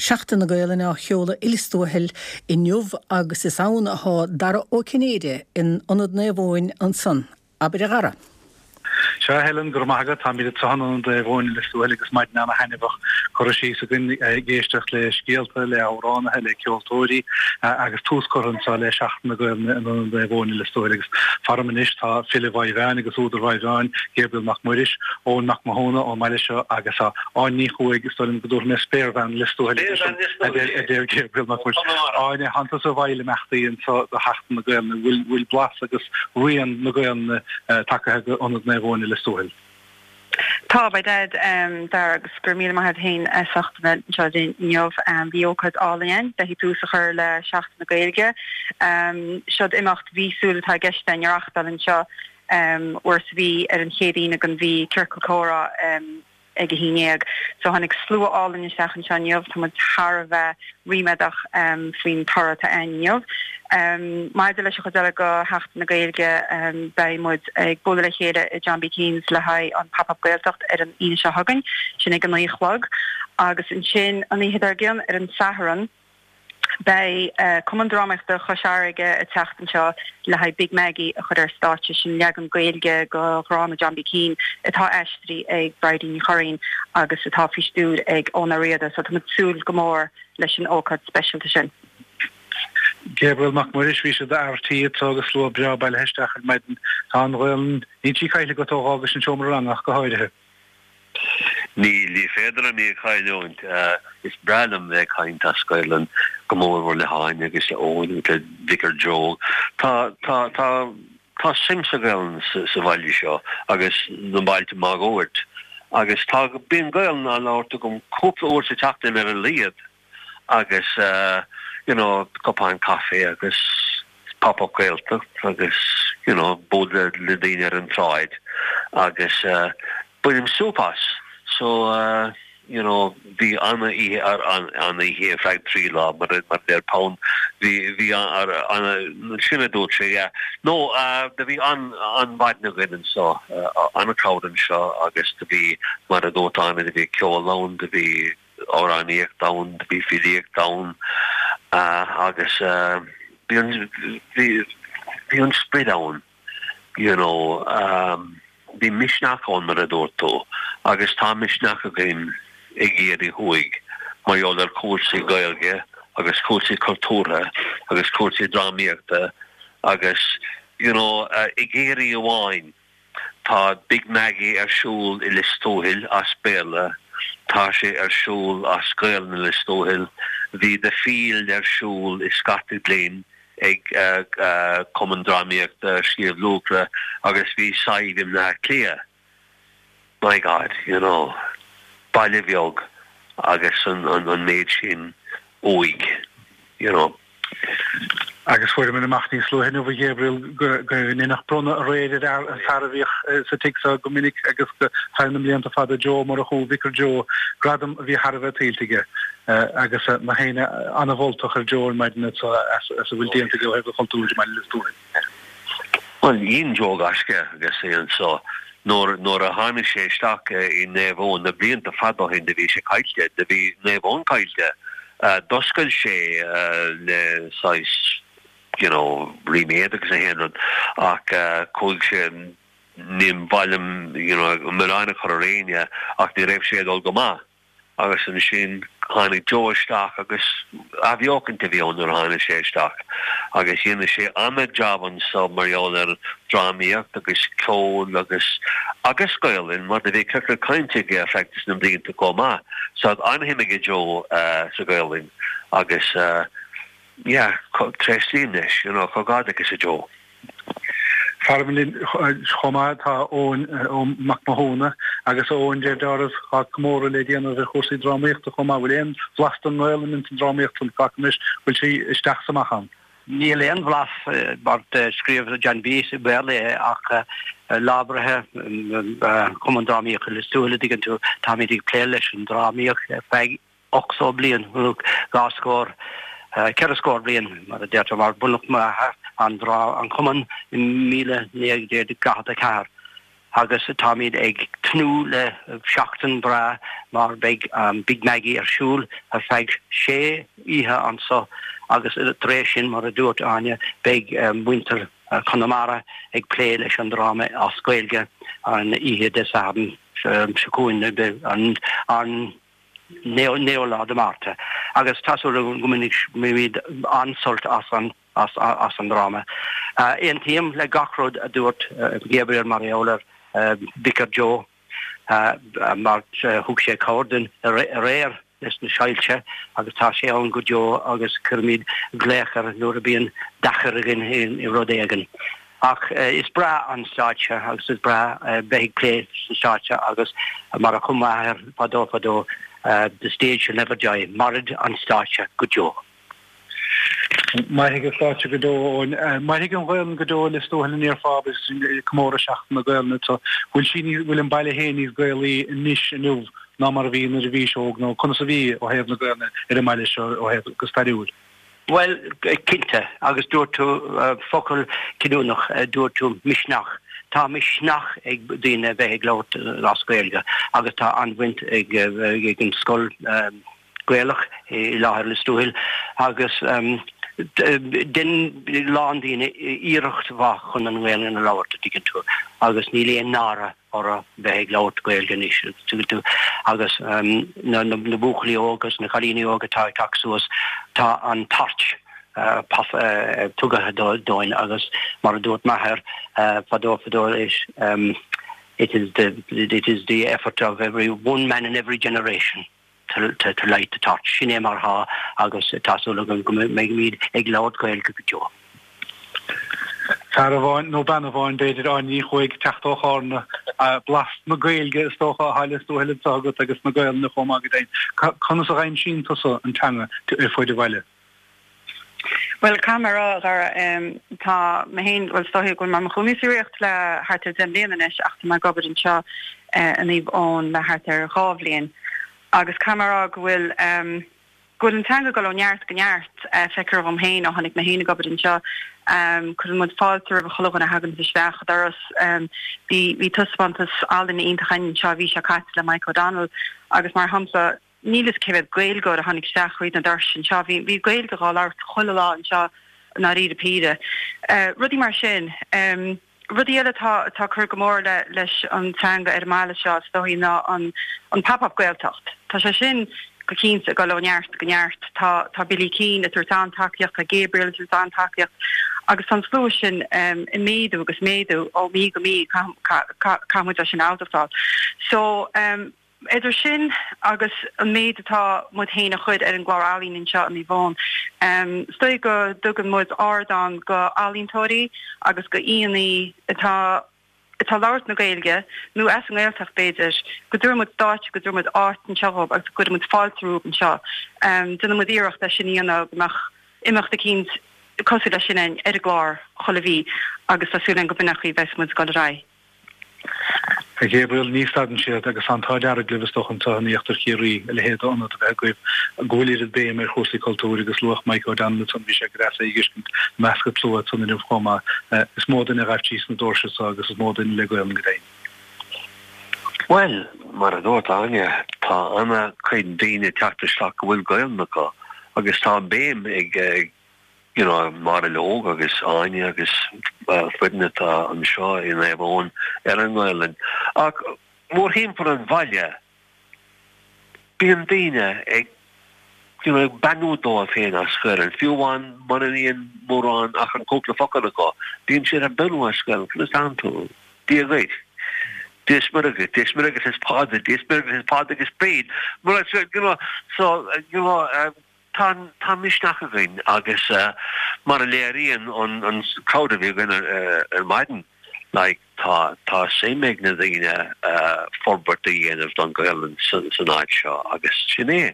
Seachtain na Gaelainne á sheoladh i Lios Tuathail inniu agus is ann athá Dara Ó Cinnéide in Ionad Naomh Eoin ansan. Abair a Dhara. Sea, a Helen, go raibh maith agat. Táimid anseo in Ionad Naomh Eoin i Lios Tuathail agus maidin ana-thaitneamhach curtha síos againn ag éisteacht le scéalta, le hamhránaithe, le ceoltóirí agus tús curtha anseo le Seachtain na Gaelainne in Ionad Naomh Eoin i Lios Tuathail agus faram anois tá file Mhaigh Mheáin agus údar Mhaigh Mheáin, Gabriel Mac Muiris, Eoin Mac Mathúna ón mbaile seo agus Áine Ní Chuaig, is dóigh liom go dtabharfaidh mé Spéirbhean Lios Tuathail a deir Gabriel Mac Muiris. Áine, thánn tusa i bhfeighil imeachtaí anseo do Sheachtain na Gaelainne, bhfuil blas agus rian na Gaelainne tagtha go Ionad Naomh Eoin i Lios Tuathail? Tá, by dad, Dara, agus go raibh míle maith agat féin as ucht a bheith anseo linn inniu. Bhí ócáid álainn ann le tús a chur le Seachtain na Gaeilge. Seod imeacht mhíosúil atá i gceist againn a reachtáil anseo uair sa mhí ar an chéad Aoine den mhí, Ciorcal Comhrá. ag a haon dhéag. So tháinig slua álainn isteach anseo inniu, tá muid thar a bheith ríméadach faoin toradh atá ann inniu. Maidir leis an chuid eile de Sheachtain na Gaeilge, beidh muid ag bualadh le chéile i John B. Keane's le haghaidh an Pop Up Gaeltacht ar an Aoine seo chugainn, sin ag a naoi a chlog. Agus ansin an oíche dár gcionn ar an Satharn, Beidh Cumann Drámaíochta Chois Fharraige ag teacht anseo le haghaidh Big Maggie a chur ar stáitse, sin leagan Gaeilge de dhráma John B. Keane atá aistrithe ag Bridie Ní Churraoin agus atá faoi stiúir ag Eoin Ó Riada, so tá muid ag súil go mór leis an ócáid speisialta sin. Gabriel Mac Muiris, bhí siad ar tí anseo agus slua breá bailithe isteach ar maidin. Tá an Ghaelainn, níl sí caillte agat ó dh'fhágais an seomra ranga ach go háirithe. Níl, ní féidir liom í a chailliúint. Is breá liom bheith ag caint as Gaelainn, go mórmhór le hÁine agus le Eoin agus le Vicar Joe. Tá, tá, tá, tá suim sa Ghaelainn sa, sa bhaile seo agus na bailte máguaird. Agus tá, bíonn Gaelainn á labhairt agam cúpla uair sa tseachtain ar a laghad. agus you know cupán caife agus Pop Up Gaeltacht agus you know bualadh le daoine ar an tsráid agus bainim súp as. So you know bhí ana-oíche ana-oíche ar feadh 3 lá mar a deir Pound bhí bhí ana sin a dúirt sé yeah. No do bhí an-mhaidin againn anseo ana-crowd anseo agus do bhí mar a dúirt Áine do bhí ceol ann do bhí amhránaíocht ann, do bhí filíocht ann agus bhí an, bhí, bhí an sprid ann, you know, bhí misneach ann mar a dúirt tú agus tá misneach againn i gCiarraí Thuaidh mar gheall ar chúrsaí Gaeilge agus cúrsaí cultúrtha agus cúrsaí drámaíochta agus, you know, i gCiarraí amháin. Tá Big Maggie ar siúl i Lios Tuathail as Béarla, tá sé ar siúl as Gaelainn i Lios Tuathail, bhí The Field ar siúl i Scartaglin ag Cumann Drámaíochta Shliabh Luachra agus bhí Sadhbh i mBleá Cliath. My God, you know, baile bheag agus an méid sin uaidh, you know. Agus fuaireamar amach níos luaithe inniu, a Ghabriel, go ndeineadh bronnadh aréir ar an fear a bhíodh sa tigh seo go minic agus feadh na mblianta fada, Joe Ó Murchú, Vicar Joe, gradam a bhí thar a bheith tuillte aige. Agus nach éinne an-mholtach ar Joe ar maidin as a bhfuil déanta aige ó thaobh an chultúir i mBaile Lios Tuathail. Bhuel, dhein Joe gaisce agus é anso. Nuair, nuair a tháinig sé isteach i Naomh Eoin na blianta fada ó shin do bhí sé caillte, do bhí Naomh Eoin caillte. D'oscail sé le saghas, you know, ríméad agus achan rud ach chuaigh sé, ní mhaith liom, you know, milleán a chur ar éinne ach ní raibh sé ag dul go maith. Agus ansin tháinig Joe isteach agus athbheochaint a bhí ann nuair a tháinig sé isteach agus dhéanadh sé ana-jab anso mar gheall ar drámaíocht agus ceol agus agus Gaolainn mar do bhí ciorcal cainte aige ar feadh na mblianta chomh maith. So tá an-shuim aige Joe sa Ghaolainn agus yeah tréaslaím leis you know comhghairdeachas a Joe. Faram linn chomh maith tá Eoin Mac Mathúna agus Eoin deir dealramh tá comóradh le déanamh ar chúrsaí drámaíochta chomh maith. Bhfuil aon bhlas den nGaelainn ins an drámaíocht san Glacaim leis bhfuil sí isteach 's amach ann? Níl aon bhlas mar scríobh John B i mBéarla é ach Lá Breithe Cumann Drámaíochta Lios Tuathail a dtuigeann tú táimid ag plé leis an drámaíocht ar feadh 80 bliain, nó dhá scór, ceithre scór bliain, mar a deirtear, mar bunaíodh m'athair an, an cumann i 1944. Agus táimid ag tnúth le seachtain bhreá mar beidh Big Maggie ar siúl ar feadh sé oíche anso agus tar éis sin, mar a dúirt Áine, beidh muintir Chonamara ag plé leis an dráma as Gaeilge an oíche Dé Sathairn seo chugainn, an 9ú lá de Márta. Agus tá súil agam go mbainfimid an-sult as an as an dráma. Aontaím le gach rud a dúirt Gabriel mar gheall ar Vicar Joe mar thug sé cabhair dúinn aréir leis na soilse agus tá sé ann go deo agus cuirimid glaoch air nuair a bíonn deacair againn i rud éigin. Ach is breá an stáitse agus is breá bheith ag plé sa stáitse agus mar a chum m'athair fadó fadó, the stage shall never die, mairfidh an stáitse go deo. Mairfidh an stáitse go deo, Eoin. Mairfidh an Ghaelainn go deo i Lios Tuathail an ndéarfá agus sinn ag comóradh Seachtain na Gaelainne anseo. Bhfuil sí níos, bhfuil an baile féin níos Gaelaí anois inniu ná mar a bhí nuair a bhís óg nó conas a bhí ó thaobh na Gaelainne ar an mbaile seo ó thaobh go stairiúil? Bhuel, cinnte, agus dúirt tú focal cinniúnach, dúirt tú misneach. Tá misneach ag daoine bheith ag labhairt as Gaeilge agus tá an-bhaint ag an scoil, Gaelach i láthair Lios Tuathail agus dein a lán daoine iarracht mhaith chun an Ghaelainn a labhairt, a dtuigeann tú, agus níl aon náire orthu bheith ag labhairt Gaeilge anois, a dtuigeann tú, agus na buachaillí óga agus na cailíní óga atá ag teacht suas, tá an torch tugtha dóibh agus mar a dúirt m'athair fadó fadó it is the, it is the effort of every one man in every generation. to light the torch. Sin é mar atá agus tá súil agam go mbeimid ag labhairt Gaeilge go deo. Fear amháin, nó bean amháin b'fhéidir, Áine Ní Chuaig, teacht ó Chárna, blas na Gaeilge is dócha atá i Lios Tuathail anseo agat agus na Gaelainne chomh maith go deimhin. Conas a dh'aimsíonn tusa an teanga ar fuaid an bhaile? Bhuel, caithfidh mé a rá, a Dhara, tá mé féin, bhuel, is dóichí go bhfuil mé i mo chónaí sa Ríocht le thart ar 10 mbliana anois ach tá mé ag obair anseo i Naomh Eoin le thart ar dhá bhliain agus caithfidh mé a rá go bhfuil, go bhfuil an teanga ag dul ó neart go neart, feictear dhom féin ó tháinig mé féin ag obair anseo. Cuireann muid fáilte roimh chuile dhuine a thaganns isteach an doras. Bhí, bhí taispeántas ealaíne iontach againn anseo an mhí seo caite le Mike O'Donnell agus mar shampla, Níl fhios cé mhéad Gaeilgeoir a tháinig isteach thríd na doirse anseo. Bhí bhí Gaeilge dhá labhairt chuile lá anseo i ndáiríre píre. Rudaí mar sin. Rudaí eile atá atá ag cur go mór le leis an teanga ar an mbaile seo is dóichí ná an an Pop Up Gaeltacht. Tá sé sin go cinnte ag dul ó neart go neart. Tá tá Billy Keane ag tabhairt an-tacaíocht, tá Gabriel ag tabhairt an-tacaíocht agus tá an slua sin ag méadú agus méadú ó mhí go mí caithfidh muid é sin a admháil. So. Idir sin agus an méid atá muid féin a chur ar an gclár ealaíon anseo i Naomh Eoin, is dóigh go dtugann muid ardán go ealaíontóirí agus go aíonna atá atá ag labhairt na Gaeilge, nó as an nGaeltacht b'fhéidir, go dtabharann muid stáitse, go dtabharann muid áit anseo dhóibh agus go gcuireann muid fáilte rompu anseo. Déanann muid iarracht é sin a dhéanamh go mbeadh imeacht eicínt cosúil leis sin ar an gclár chuile mhí agus tá súil againn go b'in an chaoi a bheas muid ag dul ar aghaidh. A Ghabriel, ní stadann siad agus tá an t-ádh dearg libh is dócha anseo in íochtar Chiarraí a leithéid d'ionad a bheith agaibh go bhfuil oiread béim ar chúrsaí cultúir agus luadh Mike O'Donnell ansan bhí sé go deas é a dh'fheiscint i measc an tslua ansan inniu chomh maith. Is mó duine a ghaibh síos na doirse seo agus is mó duine le Gaolainn go deimhin. Bhuel, mar a dúirt Áine, tá ana-chuid daoine ag teacht isteach go bhfuil Gaolainn acu agus tá béim ag you know, Máire Óg agus Áine agus foireann atá anseo i Naomh Eoin ar an nGaelainn. Ach mórthimpeall an bhaile, bíonn daoine ag, you know, ag beannú dóibh féin as Gaelainn, fiú amháin mura mbíonn mórán ach an cúpla focal acu, bíonn siad ag beannú as Gaelainn, conas tánn tú? Dia dhuit. Dia is Muire dhuit, Dia is Muire agus is Pádraig, Dia is Muire agus is Pádraig is Bríd. You know, so, you know, Tá tá misneach againn agus mar a léiríonn an an crowd a bhí againn ar maidin like tá tá suim ag na daoine forbairt a dhéanamh don Ghaelainn san san áit seo agus sin é.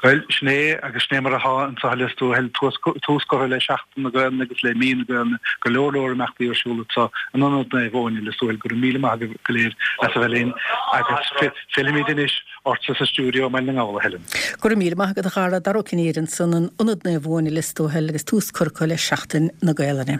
Bhuel, sin é agus sin é mar atá anseo i Lios Tuathail, tús curtha le Seachtain na Gaelainne agus le Mí na Gaelainne, go leor leor imeachtaí ar siúl anseo in Ionad Naomh Eoin i Lios Tuathail. Go raibh míle maith agaibh go léir as a bheith linn agus fillfimid anois Ortsa sa stiúideo i mBaile na nGall, a Helen. Go raibh míle maith agat a Dhara, Dara Ó Cinnéide ansan in Ionad Naomh Eoin i Lios Tuathail agus tús curtha acu le Seachtain na Gaelainne.